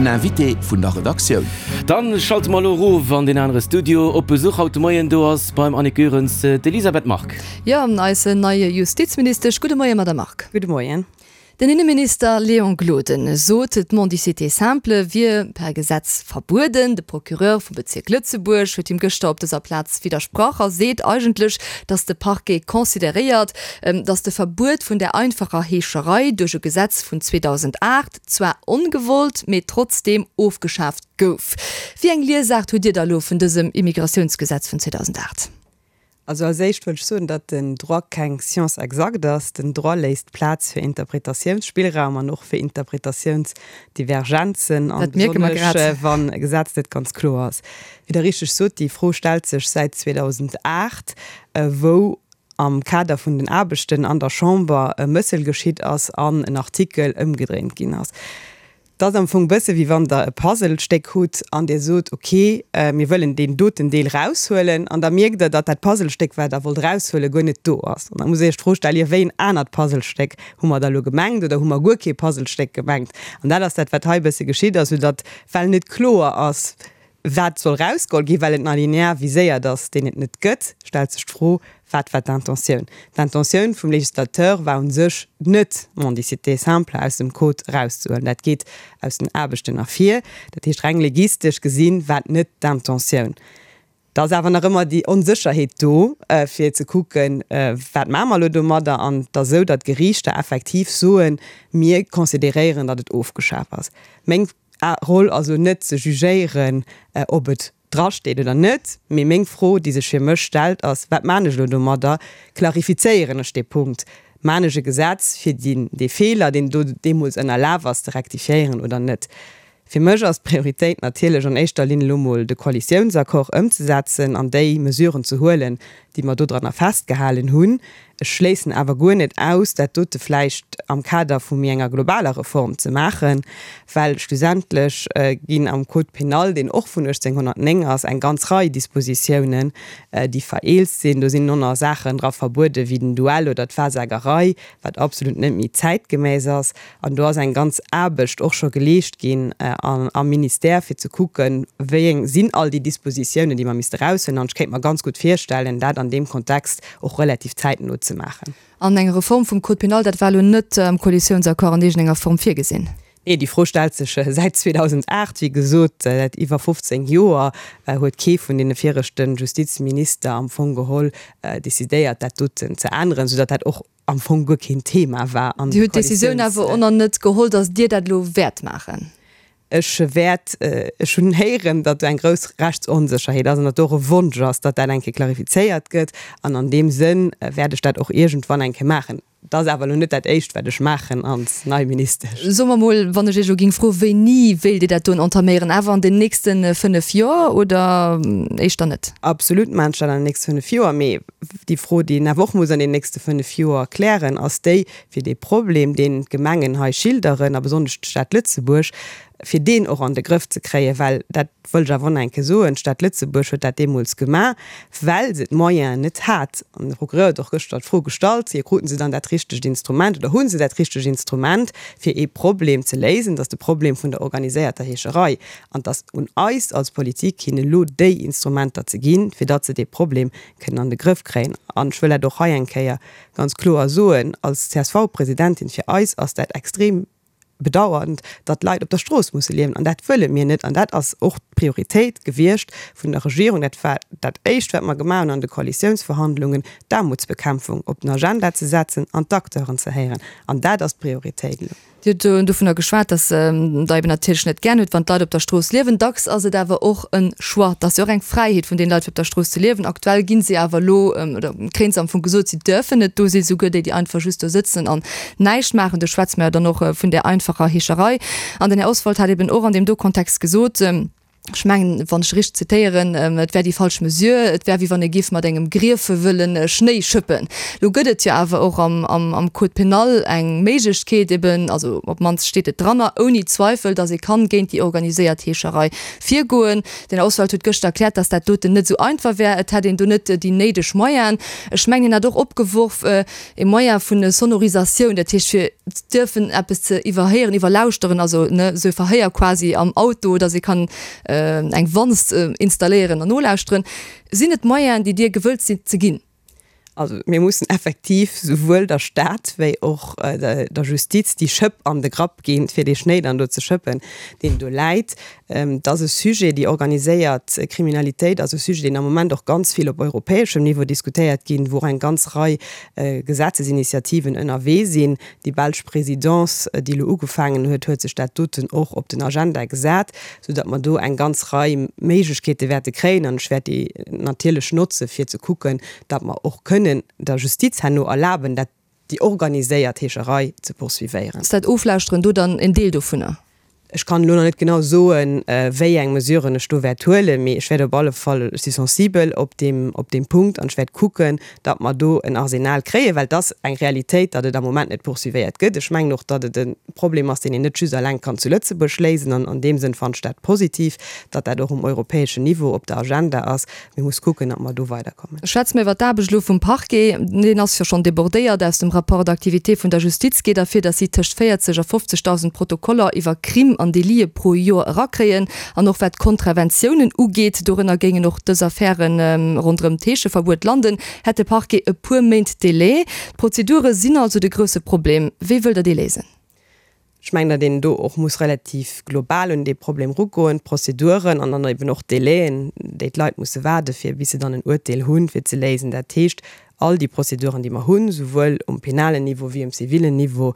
Den Invité vun der Redaktioun. Dann schalte mer elo erof an deen anere Studio. Op Besuch haut de Moien do ass beim Annick Goerens d'Elisabeth Margue. Jo, eis nei Justizministesch. Gudde Moien, Madame Margue. Gudde Moien. Den Inneminister Léon Gloden sot, d'Mendicité simple wier per Gesetz verbueden. De Procureur vum Bezierk Lëtzebuerg huet him gëschter op dëser Plaz widdersprach a seet eigentlech, datt de Parquet consideréiert, datt de Verbuet vun der einfacher Heescherei duerch e Gesetz vun 2008 zwar ongewollt, mee trotzdeem ofgeschaaft gouf. Wéi eng Liesaart hutt Dir da elo vun dësem Immigratiounsgesetz vun 2008? Also als éischt wëll ech soen, datt den Droit keng Science exacte ass. Den Droit léisst Plaz fir Interpretatiounsspillraum an och fir Interpretatiounsdivergenzen, an Dat mierke mer besonnesch grad. wann e Gesetz net ganz kloer ass. Wéi Der richteg sot, déi Fro stellt sech säit 2008, wou am Kader vun den Aarbechten an der Chamber e Mëssel geschitt ass an en Artikel ëmgedréint ginn ass. Et ass am Fong bësse wéi wann Der e Puzzlestéck hutt an Dir sot, ok, mir wëllen deen doten Deel raushuelen, an da mierkt Der, datt dat Puzzlestéck, wat Der wollt raushuelen, guer net do ass. An da musst Der Iech d'Fro stellen, Jo, wéi en anert Puzzlestéck hu mer da elo gemengt oder hu mer guer kee Puzzlestéck gemengt? An dat ass dat, wat hei e bësse geschitt ass, soudatt, well net kloer ass, Wat soll rausgeholl ginn, well et en Alinéa viséiert ass, deen et net gëtt, stellt sech d'Fro, Wat war d'Intentioun? D'Intentioun vum Législateur war u sech net, d'Mendicité simple aus dem Code erauszehuelen. Dat geet aus den Aarbechten ervir. Dat heescht, reng legistesch gesinn, war et net d'Intentioun. Da ass awer nach ëmmer déi Onsécherheet do, fir ze kucken, Wat maache mer elo domadder? An et ass esou, datt d'Geriichter effektiv soen, Mir consideréieren, datt et ofgeschaf ass. Meng Roll ass elo net ze jugéieren, ob et drasteet oder net, mee meng Fro, déi sech fir mech stellt, ass, Wat maan ech elo domadder? Klarifizéieren ech dee Punkt? Maan ech e Gesetz, fir dee Feeler, deen do deemools ënnerlaf ass, ze rektifiéieren oder net? Fir mech ass d'Prioritéit natierlech an éischter Linn elo mol de Koalitiounsaccord ëmzesetzen an déi Mesuren ze huelen, déi mer dodranner festgehalen hunn. Ech schléissen awer guer net aus, dat dote vläicht am Kader vu méi enger globaler Reform ze maachen, well schlussendlech ginn am Code pénal, deen och vun 1809 ass, eng ganz Rei Dispositiounen, déi vereelzt sinn. Do sinn nonner Saachen dra verbuede wéi den Duell oder d'Wahrsagerei, wat absolut net méi zäitgemäss ass. An do ass eng ganz Aarbecht och scho geleescht ginn am Ministère, fir ze kucken, wéi eng sinn all déi Dispositiounen, déi mer misste eraushuelen. An ech kéint mer ganz gutt virstellen, dat an deem Kontext och relativ zäitno ze maachen. An eng Reform vum Code pénal, dat war elo net am Koalitiounsaccord an iergendenger Form virgesinn? Nee, déi Fro stellt sech säit 2008. Wéi gesot, säit iwwer 15 Joer huet kee vun deene viregte Justizminister am Fong geholl decidéiert, dat doten ze änneren, soudatt dat och am Fong guer keen Thema war an Dir hutt d'Decisioun awer och nach net geholl, datt Dir dat elo wäert maachen? Ech wäert, ech hunn héieren, datt do eng grouss Rechtsonsécherheet ass an datt do och e Wonsch ass, datt dat eng Kéier klarifizéiert gëtt. An an deem Sënn wäert ech dat och iergendwann eng Kéier maachen. Et ass awer elo net dat Éischt, wat ech maachen als nei Ministesch. Soe mer mol, wann ech Iech elo géing froen, wéini wéilt Dir dat doen entaméieren? Awer an den nächste 5 Joer oder éischter net? Absolut maachen ech dat an den nächste 5 Joer. Mee Déi Fro, déi een awer och muss an den nächste 5 Joer klären, ass déi, fir dee Problem, deen d'Gemengen hei schilderen, a besonnesch d'Stad Lëtzebuerg, fir deen och an de Grëff ze kréien. Well, dat wëll ech awer och nach eng Kéier soen, d'Stad Lëtzebuerg huet dat deemools gemaach, well se d'Moyenen net hat. An de Procureur huet och gëschter d'Fro gestallt, jo, kruten se dann dat richtegt Instrument oder hu se dat richtegt Instrument, fir ee Problem ze léisen? Dat ass de Problem vun der organiséierter Heescherei. An et ass un eis als Politik, hinnen elo déi Instrumenter ze ginn, fir datt se dee Problem kënnen an de Grëff kréien. An ech wëll dat och hei eng Kéier ganz kloer soen als CSV-Presidentin, Fir eis ass dat extrem bedauernd, datt Leit op der Strooss musse liewen. An dat wëlle mir net. An dat ass och d'Prioritéit gewiescht vun der Regierung. Dat war dat Éischt, wat mer gemaach hunn an de Koalitiounsverhandlungen, d'Aarmutsbekämpfung op den Agenda ze setzen an d'Acteuren ze héieren. An dat ass d'Prioritéit elo. Dir hutt dovunner geschwat, datt Der eben natierlech net gären hutt, wann d'Leit op der Strooss liewen. Dacks ass et awer och e Choix. Et ass jo och eng Fräiheet vun deene Leit, fir op der Strooss ze liewen. Aktuell gi si awer elo, oder kréien se am Fong gesot, si däerfen net do sinn, souguer déi, déi einfach just do sëtzen an näischt maachen. Do schwätze mer jo dann och vun där einfacher Heescherei. An den Här Oswald hat eben och an deem do Kontext gesot. Ech mengen, wann ech richteg zitéieren, et wär déi falsch Mesure, et wär wéi wann ee géif mat engem Griefe wëlle Schnéi schëppen. Lo gëtt et jo awer och am Code pénal eng Méiglechkeet eben, also op d'mannst steet et dranner, ouni Zweifel, datt ee kann géint déi organiséiert Heescherei virgoen. Den Här Oswald huet gëschter erkläert, datt dat doten net esou einfach wär, et hätt een do net déi néideg Moyenen. Ech mengen, hien hat och opgeworf, e Moyen vun Sonorisatioun, dat heescht fir dierfen eppes ze iwwerhéieren, iwwerlauschteren, also ne esou e Verhéier quasi am Auto, datt ee kann eng Wanz installéieren an nolauschteren. Sinn et Moyenen, déi Dir gewëllt sidd ze ginn? Also mir mussen effektiv souwuel der Stad wéi och der Justiz déi Schëpp an de Grapp ginn, fir dee Schnéi dann do ze schëppen, deen do läit. Et ass e Sujet, déi organiséiert Kriminalitéit ass e Sujet, deen am Moment och ganz vill op europäeschem Niveau diskutéiert ginn, wou och eng ganz Rei Gesetzesinitiativen ënnerwee sinn. Déi belsch Présidence, déi elo ugefaangen huet, huet sech dat doten och op den Agenda gesat, soudatt mer do eng ganz Rei Méiglechkeete wäerte kréien. An ech wäert déi natierlech notze fir ze kucken, datt mer och kënnen der Justiz herno erlaben, dat déi organiséiert Heescherei ze poursuivéieren. Ass dat Oflauschteren do dann en Deel dovunner? Ech kann elo nach net genau soen, wéi eng Mesuren ech do wäert huelen, mee ech wäert op alle Fall, ech si sensibel op deem, op deem Punkt an ech wäert kucken, datt mer do en Arsenal kréien, well et ass eng Realitéit, datt et am Moment net poursuivéiert gëtt. Ech mengen och, datt et e Problem ass, deen een net just eleng kann zu Lëtzebuerg léisen an an deem Sënn fannen ech dat positiv, datt dat och um europäeschen Niveau op der Agenda ass. Mir muss kucken, datt mer do weiderkommen. Schwätze mer iwwer d'Aarbecht elo vum Parquet. Deen ass jo schonn débordéiert. Aus dem Rapport d'activité vun der Justiz geet ervir, datt si tëscht 40 a 50.000 Protokoller iwwer Crime an Délite pro Joer erakréien. An och wat d'Kontraventiounen ugeet, dorënner géingen och dës Affäre ronderëm d'Heescheverbuet landen, hätt de Parquet e puer Méint Délai. D'Prozedure sinn also de grousse Problem. Wéi wëllt Der dee léisen? Ech mengen, datt een do och muss relativ global un dee Problem erugoen, d'Prozeduren an dann eben och d'Délaien, déi d'Leit musse waarde fir bis se dann en Uerteel hunn, fir ze léisen. Dat heescht, all déi Prozeduren, déi mer hunn, souwuel um penalen Niveau wéi um zivilen Niveau,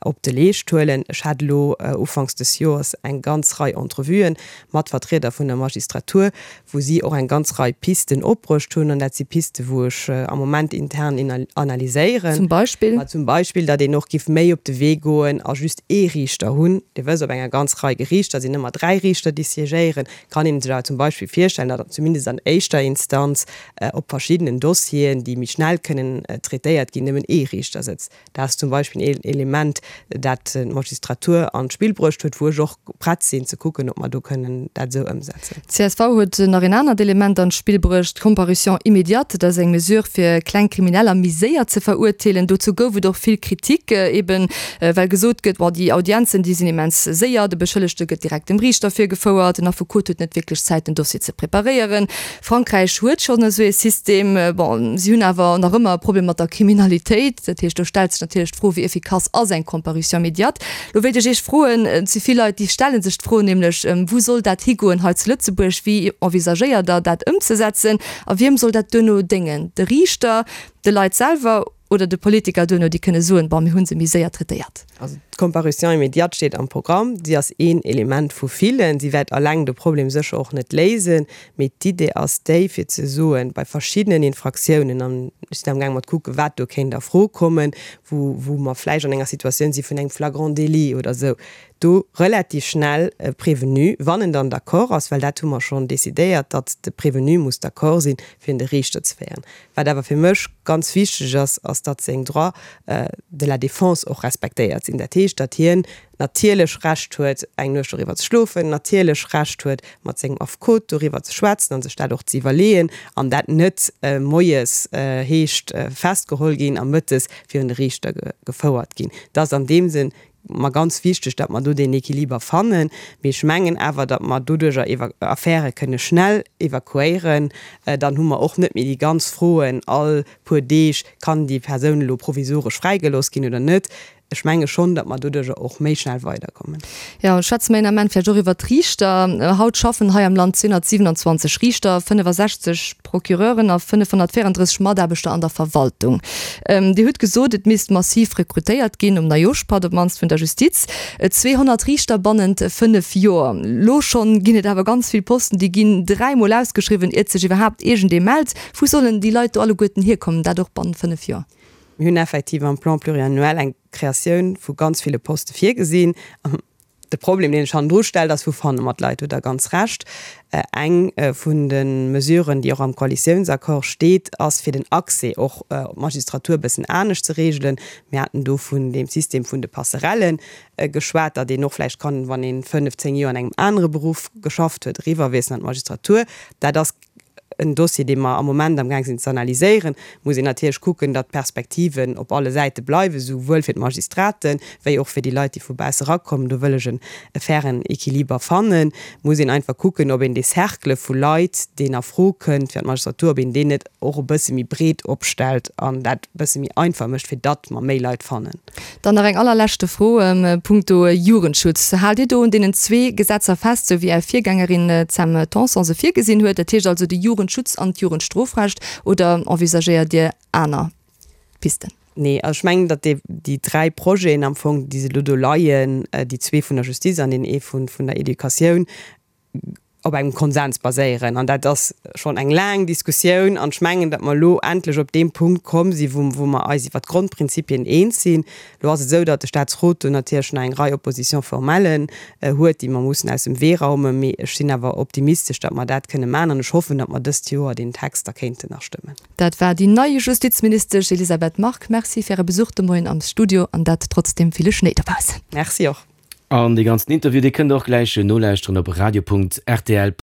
op de Leescht huelen. Ech hat elo ufanks des Joers eng ganz Rei Entrevuen mat Vertrieder vun der Magistratur, wou si och eng ganz Rei Pisten opbruecht hunn, an dat si Pisten, wou ech am Moment intern analyséieren. Zum Beispill? Ma zum Beispill, datt een och giff méi op de Wee goen a just ee Riichter hunn. Dir wësst, op enger ganz Rei Geriichter sinn ëmmer dräi Riichter, déi siégéieren. Kann een sech awer zum Beispill virstellen, datt zumindest an éischter Instanz op verschiddenen Dossieren, déi méi schnell kënnen traitéiert ginn, nëmmen ee Riichter sëtzt. Dat ass zum Beispill een Element, dat d'Magistratur an d'Spill bruecht huet, wou ech och prett sinn ze kucken, ob mer do kënnen dat esou ëmsetzen. D'CSV huet nach een anert Element an d'Spill bruecht, d'Comparution immédiate. Dat ass eng Mesure, fir kleng Krimineller méi séier ze verurteelen. Dozou gouf et och vill Kritik, eben well gesot gëtt, bon, déi Audienzen, déi sinn immens séier, de Beschëllegte gëtt direkt dem Riichter virgefouert, den Affekot huet net wierklech Zäit, den Dossier ze preparéieren. Frankräich huet schonn esou ee System. Bon, si hunn awer nach ëmmer e Problem mat der Kriminalitéit. Dat heescht, do stellt sech natierlech d'Fro, wéi effikass ass eng Comparution immédiate? Lo wéilt ech Iech froen, et si vill Leit, déi stelle sech d'Fro nämlech, wou soll dat higoen hei zu Lëtzebuerg? Wéi envisagéiert Der dat ëmzesetzen? A wiem soll dat duerno déngen? De Riichter, de Leit selwer oder de Politiker duerno, déi kënne soen, bon, mir hu se méi séier traitéiert? Also d'Comparution immédiate steet am Programm. Si ass een Element vu villen. Si wäert alleng de Problem sécher och net léisen. Mee d'Idee ass déi, fir ze soen, bei verschiddenen Infraktiounen, an ech sinn amgaang mat kucken, wat do kéint a Fro kommen, wou, wou mer vläicht an enger Situatioun si vun engem Flagrant délit oder esou, do relativ schnell e Prévenu, wann en dann d'accord ass, well dat hu mer schonn decidéiert, datt de Prévenu muss d'accord sinn, fir un de Riichter ze féieren. Wat awer fir mech ganz wichteg ass, ass datt seng Droits de la défense och respektéiert sinn. Dat heescht, datt hien natierlech Recht huet, eng Nuecht doriwwer ze schlofen, natierlech Recht huet, mat sengem Affekot doriwwer ze schwätzen a sech dat och ze iwwerleeën, an dat net moies heescht festgeholl ginn a mëttes virun de Riichter gefouert ginn. Dat ass an deem Sënn mer ganz wichteg, datt mer do deen Equiliber fannen. Mee ech mengen awer, datt mer doduerjer Affäre kënne schnell evakuéieren. Dann hu mer och net méi déi ganz Froen all puer Deeg, Kann déi Persoun elo provisoresch fräigelooss ginn oder net? Ech menge schonn, datt mer doduerjer och méi schnell weiderkommen. Jo, schwätze mer een Ament vläicht och iwwert d'Riichter. Haut schaffen hei am Land 227 Riichter, 65 Procureuren a 534 Mataarbechter an der Verwaltung. Dir hutt gesot, et misst massiv rekrutéiert ginn, um Neijooschpatt op d'mannst vun der Justiz. 200 Riichter bannent 5 Joer. Lo schonn ginn et awer ganz vill Posten, déi ginn dräimol ausgeschriwwen, iert sech iwwerhaapt iergendee mellt. Wou sollen déi Leit do alleguerten hierkommen, dat och bannent 5 Joer? Mir hunn effektiv am Plan pluriannuel eng Kreatioun vu ganz ville Poste virgesinn. De Problem, deen sech hannendru stellt, ass, Wou fanne mer d'Leit? Do hutt Der ganz Recht. Eng vun de Mesuren, déi och am Koalitiounsaccord steet, ass, fir den Accès och op d'Magistratur e bëssen anescht ze regelen. Mir haten do vun deem System vun de Passerellen geschwat, datt een och vläicht kann, wann ee fënnf, zéng Joer an engem anere Beruff geschafft huet, eriwwerwiesselen an d'Magistratur. Dat ass en Dossier, dee mer am Moment amgaang sinn ze analyséieren. Muss een natierlech kucken, datt d'Perspektiven op alle Säite bleiwen, souwuel fir d'Magistraten, wéi och fir déi Leit, déi vu bausse erakommen. Do wëll ech e fairen Equiliber fannen. Muss een einfach kucken, ob een dee Cercle vu Leit, deen a Fro kënnt fir an d'Magistratur, ob een deen net och e bësse méi breet opstellt an dat e bësse méi einfach mécht, fir datt mer méi Leit fannen. Dann nach eng allerleschte Fro punkto Jugendschutz. Haalt Dir do un deenen zwee Gesetzer fest, sou wéi Är Virgängerin d'Sam Tanson se virgesinn huet, dat heescht also de Jugendschutz an d'Jugendstrofrecht, oder envisagéiert Dir aner Pisten? Nee, also ech mengen, datt déi, déi dräi Projeten am Fong, déi se elo do leien, déi zwee vun der Justiz an deen ee vun, vun der Educatioun, op engem Konsens baséieren. An dat ass schonn eng laang Diskussioun. An ech mengen, datt mer elo endlech op deem Punkt komm sinn, wou, wou mer eis iwwert d'Grondprinzipien eens sinn. Elo ass et esou, datt de Statsrot do natierlech nach eng Rei Opposition-formellen huet, déi mer mussen aus dem Wee raumen. Mee ech sinn awer optimistesch, datt mer dat kënne maachen. An ech hoffen, datt mer dëst Joer deen Text da kéinten nach stëmmen. Dat war déi nei Justizministesch Elisabeth Margue. Merci fir Äre Besuch de Moien am Studio an dat trotz deem ville Schnéi dobaussen. Merci och. An dee ganzen Interview, dee kënnt der och gläich nolauschteren op radio.rtl.lu.